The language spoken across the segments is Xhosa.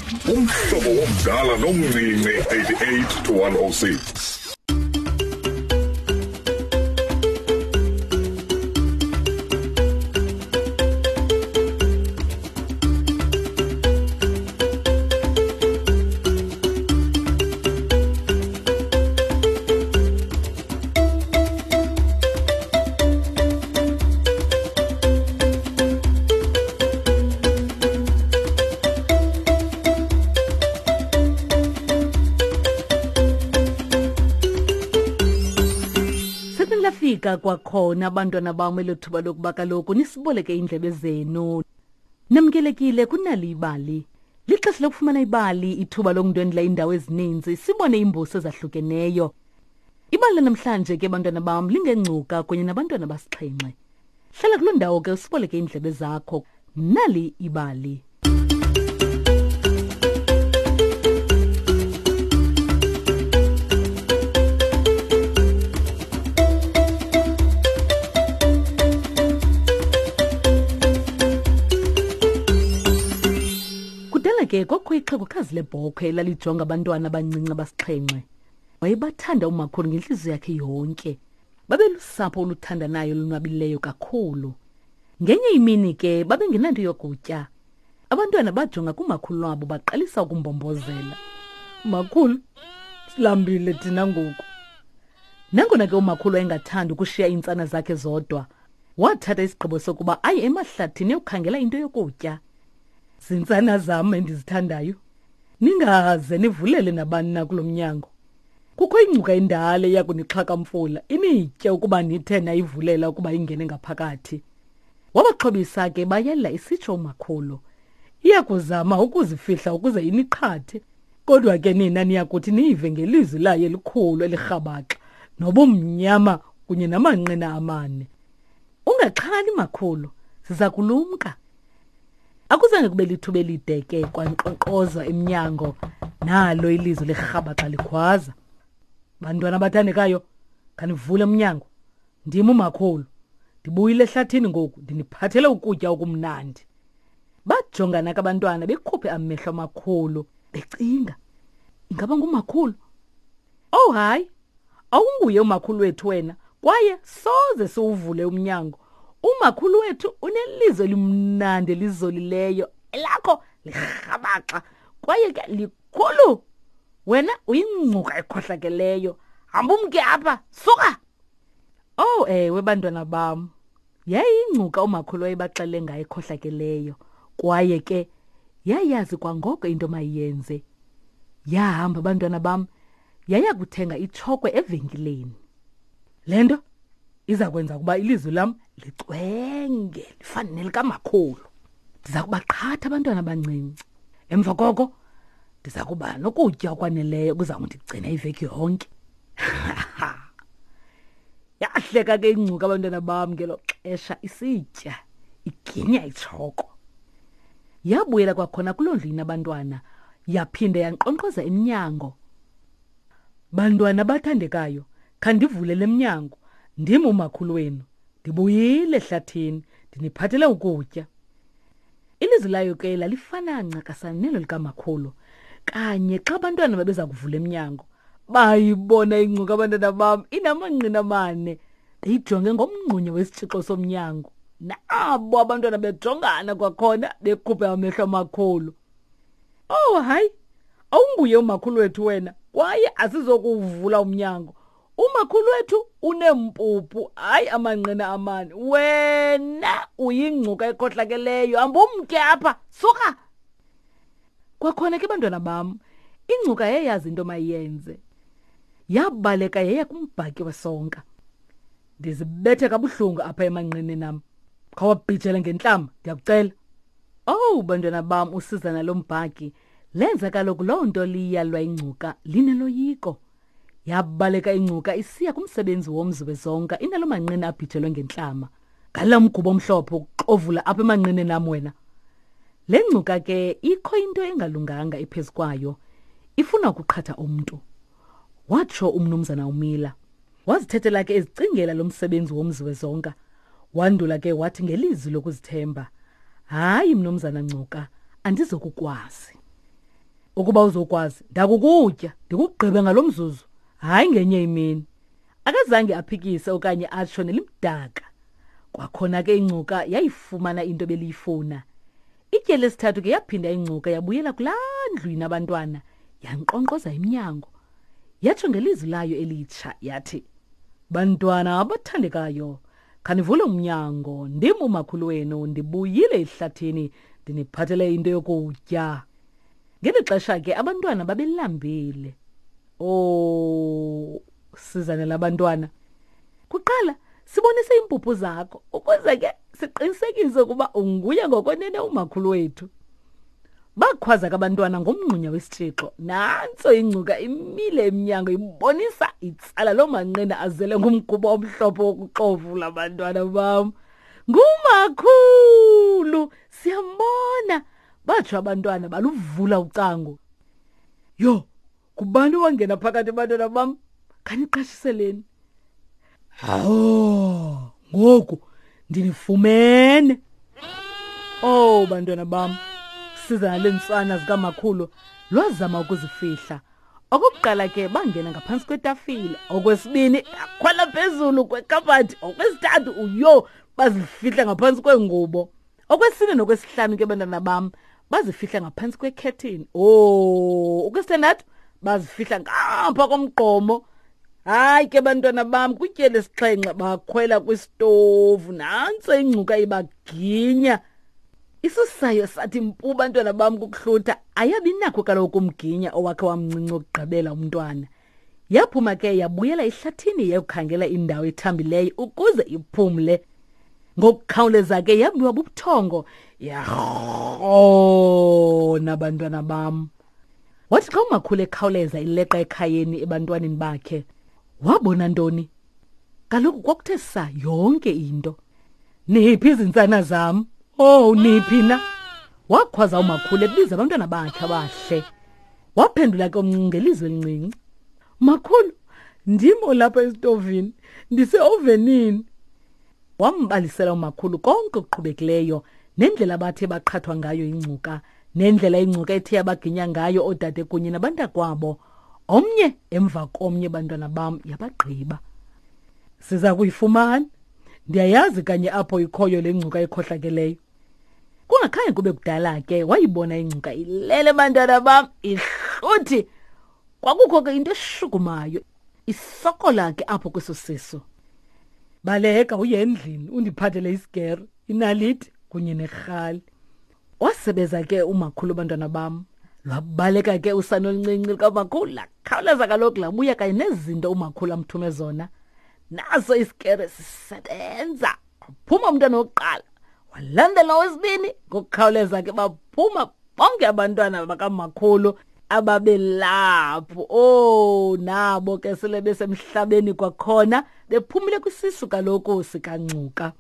Umhlobo womdala nomncinci 88 to 106. Lafika kwakhona abantwana bam elo thuba lokuba kaloku nisiboleke iindlebe zenu. Namkelekile kunali ibali. Lixesha lokufumana ibali, ithuba lokundwendwela iindawo ezininzi, sibone iimbuso ezahlukeneyo. Ibali lanamhlanje ke bantwana bam lingengcuka kunye nabantwana basixhenxe. Hlala kuloo ndawo ke usiboleke iindlebe zakho. Nali ibali. Kudala ke kwakho ixhegokazi lebhokhwe elalijonga abantwana abancinci abasixhenxe. Wayebathanda umakhulu ngentliziyo yakhe yonke. Babelusapho oluthandanayo olonwabileyo kakhulu. Ngenye imini ke babengenanto yokutya. Abantwana bajonga kumakhulu wabo baqalisa ukumbombozela. Makhulu, silambile thina ngoku. Nangona ke umakhulu wayengathandi ukushiya iintsana zakhe zodwa, wathatha isigqibo sokuba aye emahlathini eyokhangela into yokutya. Zintsana zam endizithandayo, ningaze nivulele nabani na kulo mnyango. Kukho ingcuka endala eya kunixhakamfula initye ukuba nithe nayivulela ukuba ingene ngaphakathi. Wabaxhobisa ke bayela isitsho umakhulu. Iya kuzama ukuzifihla ukuze iniqhathe, kodwa ke nina niya kuthi niyive ngelizwi layo elikhulu elirhabaxa nobumnyama kunye namanqina amane. Ungaxhali makhulu, siza kulumka. Akuzange kube lithuba elide ke kwankqonkqozwa emnyango nalo ilizwi lirhabaxa likhwaza. Bantwana abathandekayo, khanivule umnyango. Ndim umakhulu. Ndibuyile ehlathini ngoku ndiniphathele ukutya okumnandi. Bajongana ke abantwana bekhuphe amehlo amakhulu becinga. Ingaba ngumakhulu? Oh hayi, awunguye umakhulu wethu wena kwaye soze siwuvule umnyango. Umakhulu wethu unelizwi elimnandi elizolileyo elakho lirhabaxa kwaye ke likhulu. Wena uyingcuka ekhohlakeleyo. Hamba umke apha, suka! Oh ewe bantwana bam. Yayingcuka umakhulu wayebaxele ngayo ekhohlakeleyo kwaye ke yayazi kwangoko into mayiyenze. Yahamba bantwana bam yaya kuthenga itshokwe evenkileni. Le nto iza kwenza ukuba ilizwi lam licwenge lifane nelikamakhulu. Ndiza kubaqhatha abantwana abancinci. Emva koko ndiza kuba nokutya okwaneleyo kuza kundigcina iveki yonke. Yahleka ke ingcuka abantwana bam ngelo xesha isitya iginya itshoko. Yabuyela kwakhona kuloo ndlu inabantwana yaphinda yankqonkqoza emnyango. Bantwana abathandekayo, khandivule le mnyango. Ndim umakhulu wenu. Ndibuyile ehlathini, ndiniphathele ukutya. Ilizwi layo ke lalifana ncakasana nelo likamakhulu. Kanye xa abantwana babeza kuvula emnyango, bayibona ingcuka abantwana bam inamanqina amane beyijonge ngomngxunye wesitshixo somnyango. Nabo abantwana bejongana kwakhona bekhuphe amehlo amakhulu. Oh hayi, awunguye umakhulu wethu wena kwaye asizokuwuvula umnyango. Umakhulu wethu uneempuphu, hayi amanqina amane. Wena uyingcuka ekhohlakeleyo, hambumke apha, suka! Kwakhona ke bantwana bam, ingcuka yayazi into mayenze. Yabaleka yaya kumbhaki wesonka. Ndizibethe kabuhlungu apha emanqineni am. Khawabhijele ngentlama, ndiyakucela. Owu bantwana bam, usizana lombhaki lenza kaloku loo nto liyalwa ingcuka lineloyiko. Yabaleka ingcuka isiya kumsebenzi womzi wezonka inalo manqina abhijelwe ngentlama. Ngala mgubo omhlophe ukuxovula apha emanqineni am wena. Le ngcuka ke ikho into engalunganga ephezu kwayo. Ifuna ukuqhatha umntu. Watsho umnumzana uMiller. Wazithethela ke ezicingela lo msebenzi womzi wezonka. Wandula ke wathi ngelizwi lokuzithemba, Hayi mnumzana Ngcuka, andizokukwazi. Ukuba uzokwazi, ndakukutya, ndikugqibe ngalo mzuzu, hayi ngenye imini. Akazange aphikise okanye atsho nelimdaka. Kwakhona ke ingcuka yayifumana into ebeliyifuna. Itye lesithathu ke yaphinda ingcuka yabuyela kulaa ndlu inabantwana, yankqonkqoza emnyango. Yatsho ngelizwi layo elitsha yathi, Bantwana abathandekayo, khanivule umnyango, ndim umakhulu wenu, ndibuyile ehlathini, ndiniphathele into yokutya. Ngeli xesha ke abantwana babelambile. Oh, sizane labantwana. Kuqala sibonise iimpuphu zakho ukuze ke siqinisekise ukuba unguye ngokwenene umakhulu wethu. Bakhwaza ke abantwana ngomngxunya wesitshixo. Nantso ingcuka imile emnyango ibonisa itsala loo manqina azele ngumgubo omhlophe wokuxovula bantwana bam. Ngumakhulu, siyambona. Batsho abantwana baluvula ucango. Yho, ngubani owangena phakathi bantwana bam? Khaniqashiseleni. Hawo, ngoku ndinifumene. Oh bantwana bam, siza nale ntsana zikamakhulu lwazama ukuzifihla. Okokuqala ke bangena ngaphantsi kwetafile, okwesibini bakhwela phezulu kwekhabhathi, okwesithathu uyo bazifihla ngaphantsi kweengubo. Okwesine nokwesihlanu ke bantwana bam bazifihla ngaphantsi kwekhethini. Oh, okwesithandathu bazifihla ngapha komgqomo. Hayi ke bantwana bam kwityeli esixhenxe bakhwela kwisitovu nantso ingcuka ibaginya. Isusayo sathi mpu bantwana bam kukuhlutha ayabi nakho kaloku umginya owakhe wamncinci okugqibela umntwana. Yaphuma ke yabuyela ehlathini yayokhangela indawo ethambileyo ukuze iphumle. Ngokukhawuleza ke yabiwa bubuthongo yarhona bantwana bam. Wathi xa umakhulu ekhawuleza ileqa ekhayeni ebantwaneni bakhe, wabona ntoni? Kaloku kwakuthe sa yonke into. Niphi izintsana zam? Oh, niphi na? Wakhwaza umakhulu ebiza abantwana bakhe abahle. Waphendula ke omncinci ngelizwi elincinci. Makhulu, ndim olapha esitovini, ndiseovenini. Wambalisela umakhulu konke okuqhubekileyo nendlela abathe baqhathwa ngayo ingcuka nendlela ingcuka ethe yabaginya ngayo oodade kunye nabantakwabo. Omnye emva komnye bantwana bam yabagqiba. Siza kuyifumana. Ndiyayazi kanye apho ikhoyo le ngcuka ikhohlakeleyo. Kungakhange kube kudala ke wayibona ingcuka ilele bantwana bam ihluthi. Kwakukho ke into eshukumayo isokola ke apho kweso sisu. Baleka uye endlini undiphathele isigero, inaliti kunye nerhali. Wasebeza ke umakhulu bantwana bam. Lwabaleka ke usana oluncinci lukamakhulu lakhawuleza kaloku labuya kanye nezinto umakhulu amthume zona. Naso isikere sisebenza. Waphuma umntwana wokuqala walandela owesibini ngokukhawuleza ke baphuma bonke abantwana bakamakhulu ababelapho. Oh nabo ke sele besemhlabeni kwakhona bephumile kwisisu kaloku sikaNgcuka.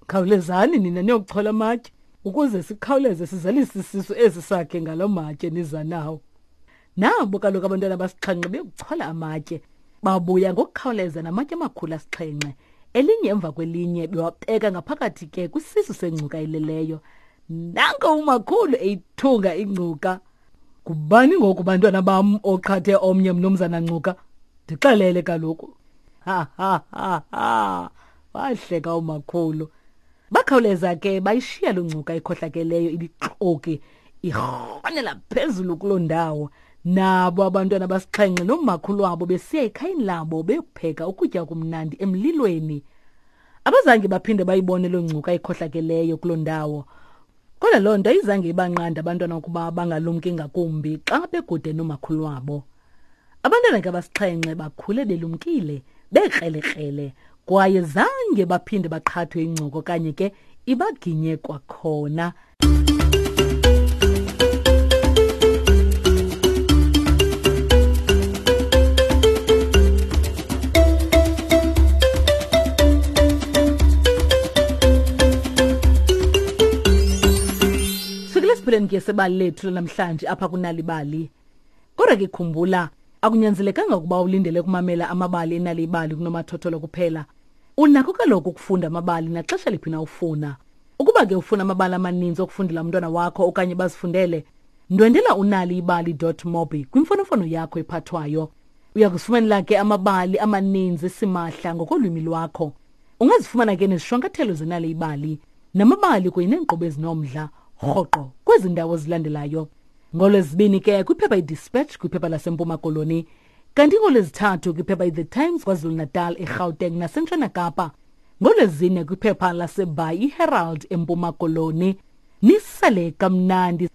Khawulezani nina niyokuchola amatye ukuze sikhawuleze sizalise isisu esi sakhe ngalo matye niza nawo. Nabo kaloku abantwana basixhenxe beyokuchola amatye babuya ngokukhawuleza namatye amakhulu asixhenxe elinye emva kwelinye bewabeka ngaphakathi ke kwisisu sengcuka ileleyo. Nanko umakhulu eyithunga ingcuka. Ngubani ngoku bantwana bam oqhathe omnye mnumzana Ngcuka? Ndixelele kaloku. Ha ha ha ha. Wahleka umakhulu. Bakhawuleza ke bayishiya loo ngcuka ikhohlakeleyo ibixoki irhonela phezulu kuloo ndawo. Nabo abantwana basixhenxe nomakhulu wabo besiya ekhayeni labo beyokupheka ukutya okumnandi emlilweni. Abazange baphinde bayibone loo ngcuka ikhohlakeleyo kuloo ndawo. Kodwa loo nto ayizange ibanqande abantwana ukuba bangalumki ngakumbi xa bekude nomakhulu wabo. Abantwana ke abasixhenxe bakhule belumkile, bekrelekrele, kwaye zange baphinde baqhathwe ingcoko okanye ke ibaginye kwakhona. Sifikile esiphelweni ke sebali lethu lanamhlanje apha kunalibali. Kodwa ke khumbula, akunyanzelekanga ukuba ulindele ukumamela amabali enalibali kunomathotholo kuphela. Unakho kaloku ukufunda amabali naxesha liphi na ufuna. Ukuba ke ufuna amabali amaninzi okufundela umntwana wakho okanye bazifundele, Ndwendela unaliibali.mobi kwimfonomfono yakho ephathwayo. Uya kuzifumanela ke amabali amaninzi simahla ngokolwimi lwakho. Ungazifumana ke nezishwankathelo zenali ibali namabali kunye neenkqubo ezinomdla rhoqo kwezi ndawo zilandelayo. NgoLwezibini ke kwiphepha iDispatch kwiphepha laseMpuma Koloni, kanti ngoLwezithathu kwiphepha iThe Times KwaZulu-Natal, eGauteng naseNtshona Kapa. NgoLwezine kwiphepha laseBhayi iHerald eMpuma Koloni. Nisale kamnandi.